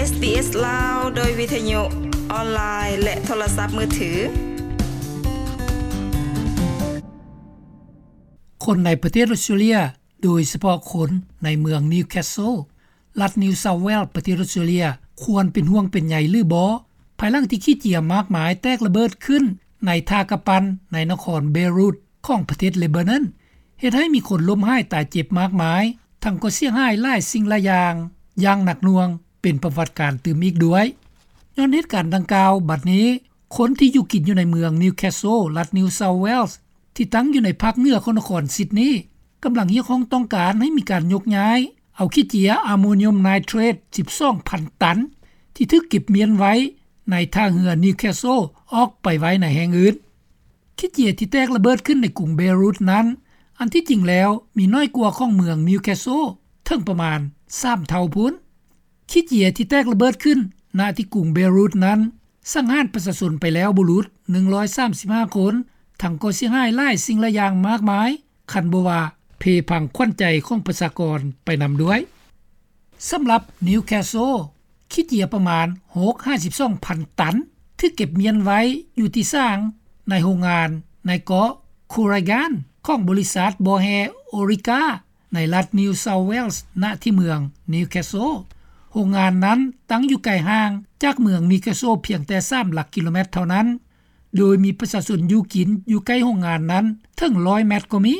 ເອສ ລາວ ໂດຍວິທະຍຸອອນລາຍ ແລະ ໂທລະສັບມືຖື. ຄົນໃນປະເທດອົດສະເຕຣເລັຽ ໂດຍສະເພາະຄົນໃນເມືອງນິວແຄສເຊິລ ລັດນິວເຊົາເວລສ໌ ປະເທດອົດສະເຕຣເລັຽ ຄວນເປັນຫ່ວງເປັນໃຍຫຼືບໍ່ ພາຍຫຼັງທີ່ຂີ້ເຈຍມາກມາຍແຕກລະເບີດຂຶ້ນໃນທ່າກຳປັ່ນໃນນະຄອນເບຣູດຂອງປະເທດເລບານອນ ເຮັດໃຫ້ມີຄົນລົ້ມຫາຍຕາຍເຈັບມາກມາຍ ທັງກໍເສຍຫາຍຫຼາຍສິ່ງຫຼາຍຢ່າງ ຢ່າງໜັກໜ່ວງ ເປັນປະຫວັດການຕື່ມອີກດ້ວຍ. ຍ້ອນເຫດການດັ່ງກ່າວ ບັດນີ້ຄົນທີ່ຢູ່ກິນຢູ່ໃນເມືອງນິວແຄສເຊິລ ລັດນິວເຊົາເວລສ໌ ທີ່ຕັ້ງຢູ່ໃນພາກເໜືອຂອງນະຄອນຊິດນີ ກຳລັງຮຽກຮ້ອງຕ້ອງການໃຫ້ມີການຍົກຍ້າຍເອົາຂີ້ເຈຍອາໂມນຽມໄນເທຣດ ສິບສອງພັນຕັນ ທີ່ຖືກເກັບມ້ຽນໄວ້ໃນທ່າເຮືອນິວແຄສເຊິລ ອອກໄປໄວ້ໃນແຫ່ງອື່ນ. ຂີ້ເຈຍທີ່ແຕກລະເບີດຂຶ້ນໃນກຸງເບຣູດນັ້ນ ອັນທີ່ຈິງແລ້ວມີນ້ອຍກວ່າຂອງເມືອງນິວແຄສເຊິລເຖິງປະມານສາມເທົ່າພຸ້ນ. ຂີ້ເຈຍທີ່ແຕກລະເບີດຂຶ້ນ ນະທີ່ກຸງເບຣູດນັ້ນ ສັງຫານປະຊາຊົນໄປແລ້ວບໍ່ຫຼຸດ ໜຶ່ງຮ້ອຍສາມສິບຫ້າຄົນ ທັງກໍເສຍຫາຍຫຼາຍສິ່ງຫຼາຍຢ່າງມາກມາຍ ຄັນບໍ່ວ່າເພພັງຂວັນໃຈຂອງປະຊາກອນໄປນຳດ້ວຍ. ສຳລັບນິວແຄສເຊິລ ຂີ້ເຈຍປະມານຫົກຫາສິບສອງພັນຕັນ ຖືກເກັບມ້ຽນໄວ້ຢູ່ທີ່ສາງໃນໂຮງງານໃນເກາະຄູຣາການ ຂອງບໍລິສັດບໍ່ແຮ່ໂອຣິກາ ໃນລັດນິວເຊົາເວລສ໌ ນະທີ່ເມືອງນິວແຄສເຊິລ. ໂຮງງານນັ້ນຕັ້ງຢູ່ໄກຫ່າງຈາກເມືອງນິວແຄສເຊິລພຽງແຕ່ສາມຫຼັກກິໂລແມັດເທົ່ານັ້ນ ໂດຍມີປະຊາຊົນຢູ່ກິນຢູ່ໃກ້ໂຮງງານນັ້ນເຖິງຮ້ອຍແມັດກໍມີ.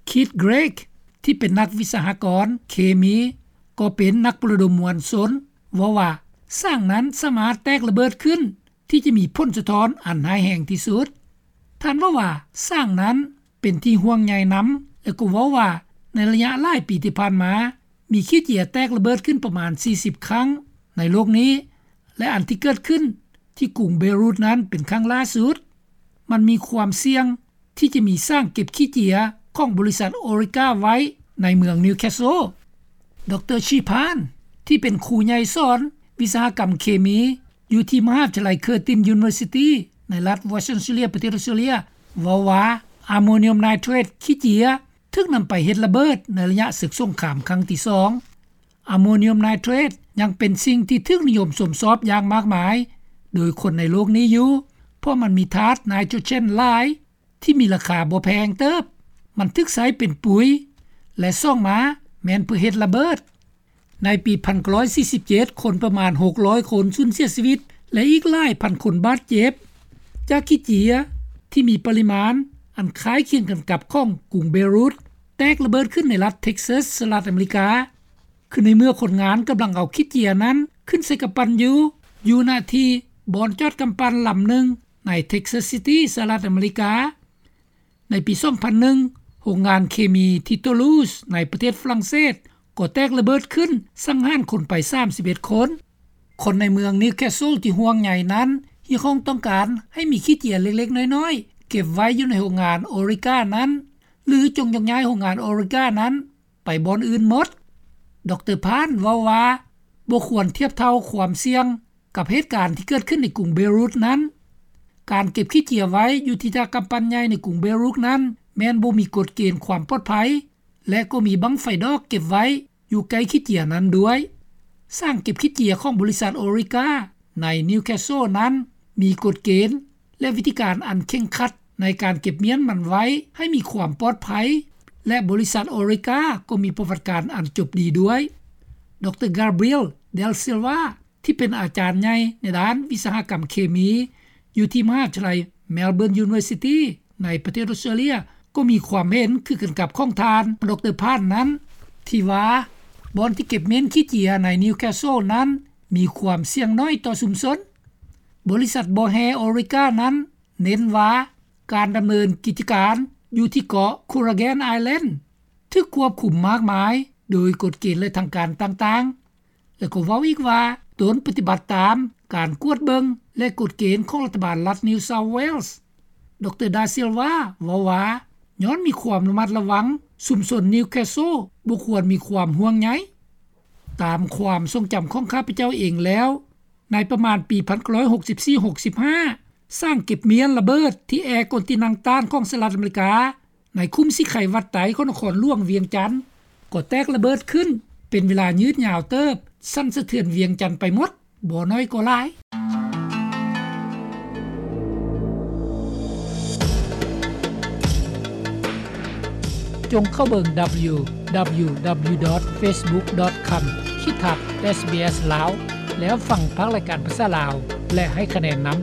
ຄີດ ເກຣກ ທີ່ເປັນນັກວິສະຫະກອນເຄມີ ກໍເປັນນັກປະໂລມມວນຊົນ ເວົ້າວ່າ ສ້າງນັ້ນສາມາດແຕກລະເບີດຂຶ້ນ ທີ່ຈະມີຜົນສະທ້ອນອັນຮ້າຍແຮງທີ່ສຸດ. ທ່ານເວົ້າວ່າ ສ້າງນັ້ນເປັນທີ່ຫ່ວງໃຍນຳ ແລະ ກໍເວົ້າວ່າ ໃນໄລຍະຫຼາຍປີທີ່ຜ່ານມາ ມີຂີ້ເຈຍແຕກລະເບີດຂຶ້ນປະມານສີ່ສິບຄັ້ງໃນໂລກນີ້ ແລະ ອັນທີ່ເກີດຂຶ້ນທີ່ກຸງເບຣູດນັ້ນເປັນຄັ້ງລ່າສຸດ. ມັນມີຄວາມສ່ຽງທີ່ຈະມີສ້າງເກັບຂີ້ເຈຍຂອງບໍລິສັດໂອຣິກາໄວ້ໃນເມືອງນິວແຄສເຊິລ. ດຣ ຊີພານ ທີ່ເປັນຄູໃຫຍ່ສອນວິສະຫະກຳເຄມີ ຢູ່ທີ່ມະຫາວິທະຍາໄລເຄີຕິນຢູນິເວີຊິຕີ ໃນລັດວອດສະເຕຣເລັຽ ປະເທດອົດສະເຕຣເລັຽ ເວົ້າວ່າ ອາໂມນຽມໄນເທຣດ ຂີ້ເຈຍ ຖືກນຳໄປເຮັດລະເບີດໃນໄລຍະເສິກສົງຄາມຄັ້ງທີສອງ. ອາໂມນຽມໄນເທຣດ ຍັງເປັນສິ່ງທີ່ຖືກນິຍົມຊົມຊອບຢ່າງມາກມາຍໂດຍຄົນໃນໂລກນີ້ຢູ່ ເພາະມັນມີທາດໄນໂຕຣເຈນຫຼາຍ ທີ່ມີລາຄາບໍ່ແພງເຕີບ. ມັນຖືກໃຊ້ເປັນປຸຍ ແລະ ສອງມາແມ່ນເພື່ອເຮັດລະເບີດ. ໃນປີພັນເກົ້າຮ້ອຍສີ່ສິບເຈັດ ຄົນປະມານຫົກຮ້ອຍຄົນສູນເສຍຊີວິດ ແລະ ອີກຫຼາຍພັນຄົນບາດເຈັບ ຈາກຂີ້ເຈຍທີ່ມີປະລິມານອັນຄ້າຍຄຽງກັນກັບຂອງກຸງເບຣູດ ແຕກລະເບີດຂຶ້ນໃນລັດເທັກຊັສ ສະຫະລັດອາເມລິກາ. ຄືໃນເມື່ອຄົນງານກຳລັງເອົາຂີ້ເຈຍນັ້ນຂຶ້ນໃສ່ກຳປັ່ນຢູ່ ຢູ່ນະທີ່ບ່ອນຈອດກຳປັ່ນລຳໜຶ່ງໃນເທັກຊັສຊິຕີ ສະຫະລັດອາເມລິກາ. ໃນປີສອງພັນໜຶ່ງ ໂຮງງານເຄມີທີ່ໂຕລູສ ໃນປະເທດຝຣັ່ງເສດ ກໍແຕກລະເບີດຂຶ້ນ ສັງຫານຄົນໄປສາມສິບເອັດຄົນ. ຄົນໃນເມືອງນິວແຄສເຊິລທີ່ຫ່ວງໃຍນັ້ນ ຮຽກຮ້ອງຕ້ອງການໃຫ້ມີຂີ້ເຈຍເລັກໆນ້ອຍໆ ເກັບໄວ້ຢູ່ໃນໂຮງງານໂອຣິການັ້ນ ຫຼື ຈົ່ງຍົກຍ້າຍໂຮງງານໂອຣິການັ້ນ ໄປບ່ອນອື່ນໝົດ. ດຣ ພານ ເວົ້າວ່າ ບໍ່ຄວນທຽບເທົ່າຄວາມສ່ຽງກັບເຫດການທີ່ເກີດຂຶ້ນໃນກຸງເບຣູດນັ້ນ. ການເກັບຂີ້ເຈຍໄວ້ຢູ່ທີ່ທ່າກຳປັ່ນໃຫຍ່ໃນກຸງເບຣູດນັ້ນ ແມ່ນບໍ່ມີກົດເກນຄວາມປອດໄພ ແລະ ກໍມີບັ້ງໄຟດອກເກັບໄວ້ຢູ່ໃກ້ຂີ້ເຈຍນັ້ນດ້ວຍ. ສ້າງເກັບຂີ້ເຈຍຂອງບໍລິສັດໂອລິກາໃນນິວແຄສເຊິລນັ້ນ ມີກົດເກນ ແລະ ວິທີການອັນເຄັ່ງຄັດໃນການເກັບມ້ຽນມັນໄວ້ໃຫ້ມີຄວາມປອດໄພ ແລະ ບໍລິສັດໂອລິກາກໍມີປະຫວັດການອັນຈົບດີດ້ວຍ. ດຣ ກາບຣຽລ ເດລ ຊິລວາ ທີ່ເປັນອາຈານໃຫຍ່ໃນດ້ານວິສະຫະກຳເຄມີ ຢູ່ທີ່ມະຫາວິທະຍາໄລ Melbourne University ໃນປະເທດອົດສະເຕຣເລັຽ ກໍມີຄວາມເຫັນຄືກັນກັບຂອງທ່ານ ດຣ ພານ ນັ້ນ ທີ່ວ່າ ບ່ອນທີ່ເກັບມ້ຽນຂີ້ເຈຍໃນນິວແຄສເຊິລນັ້ນ ມີຄວາມສ່ຽງໜ້ອຍຕໍ່ຊຸມຊົນ. ບໍລິສັດບໍ່ແຮ່ໂອລິການັ້ນເນັ້ນວ່າ ການດຳເນີນກິດຈະການຢູ່ທີ່ເກາະຄູຣາແກນໄອແລນ ຖືກຄວບຄຸມມາກມາຍໂດຍກົດເກນ ແລະ ທາງການຕ່າງໆ ແລະ ກໍເວົ້າອີກວ່າ ຕົນປະຕິບັດຕາມການກວດເບິ່ງ ແລະ ກົດເກນຂອງລັດຖະບານລັດນິວເຊົາເວລສ໌. ດຣ ດາ ຊິລວາ ເວົ້າວ່າ ຍ້ອນມີຄວາມລະມັດລະວັງ, ຊຸມຊົນນິວແຄສເຊິລບໍ່ຄວນມີຄວາມຫ່ວງໃຍ. ຕາມຄວາມຊົງຈຳຂອງຂ້າພະເຈົ້າເອງແລ້ວ, ໃນປະມານປີພັນເກົ້າຮ້ອຍຫົກສິບສີ່ ຫົກສິບຫ້າ ສ້າງເກັບມ້ຽນລະເບີດທີ່ແອກອນຕິນັງຕານຂອງສະຫະລັດອາເມລິກາ ໃນຄຸ້ມສີໄຄວັດໄຕຂອງນະຄອນຫຼວງວຽງຈັນ ກໍແຕກລະເບີດຂຶ້ນເປັນເວລາຍືດຍາວເຕີບ ສັ່ນສະເທືອນວຽງຈັນໄປໝົດ ບໍ່ໜ້ອຍກໍຫຼາຍ. ຈົ່ງເຂົ້າເບິ່ງ www.facebook.com/sbslao ແລ້ວຟັງພາກລາຍການພາສາລາວ ແລະ ໃຫ້ຄະແນນນຳ.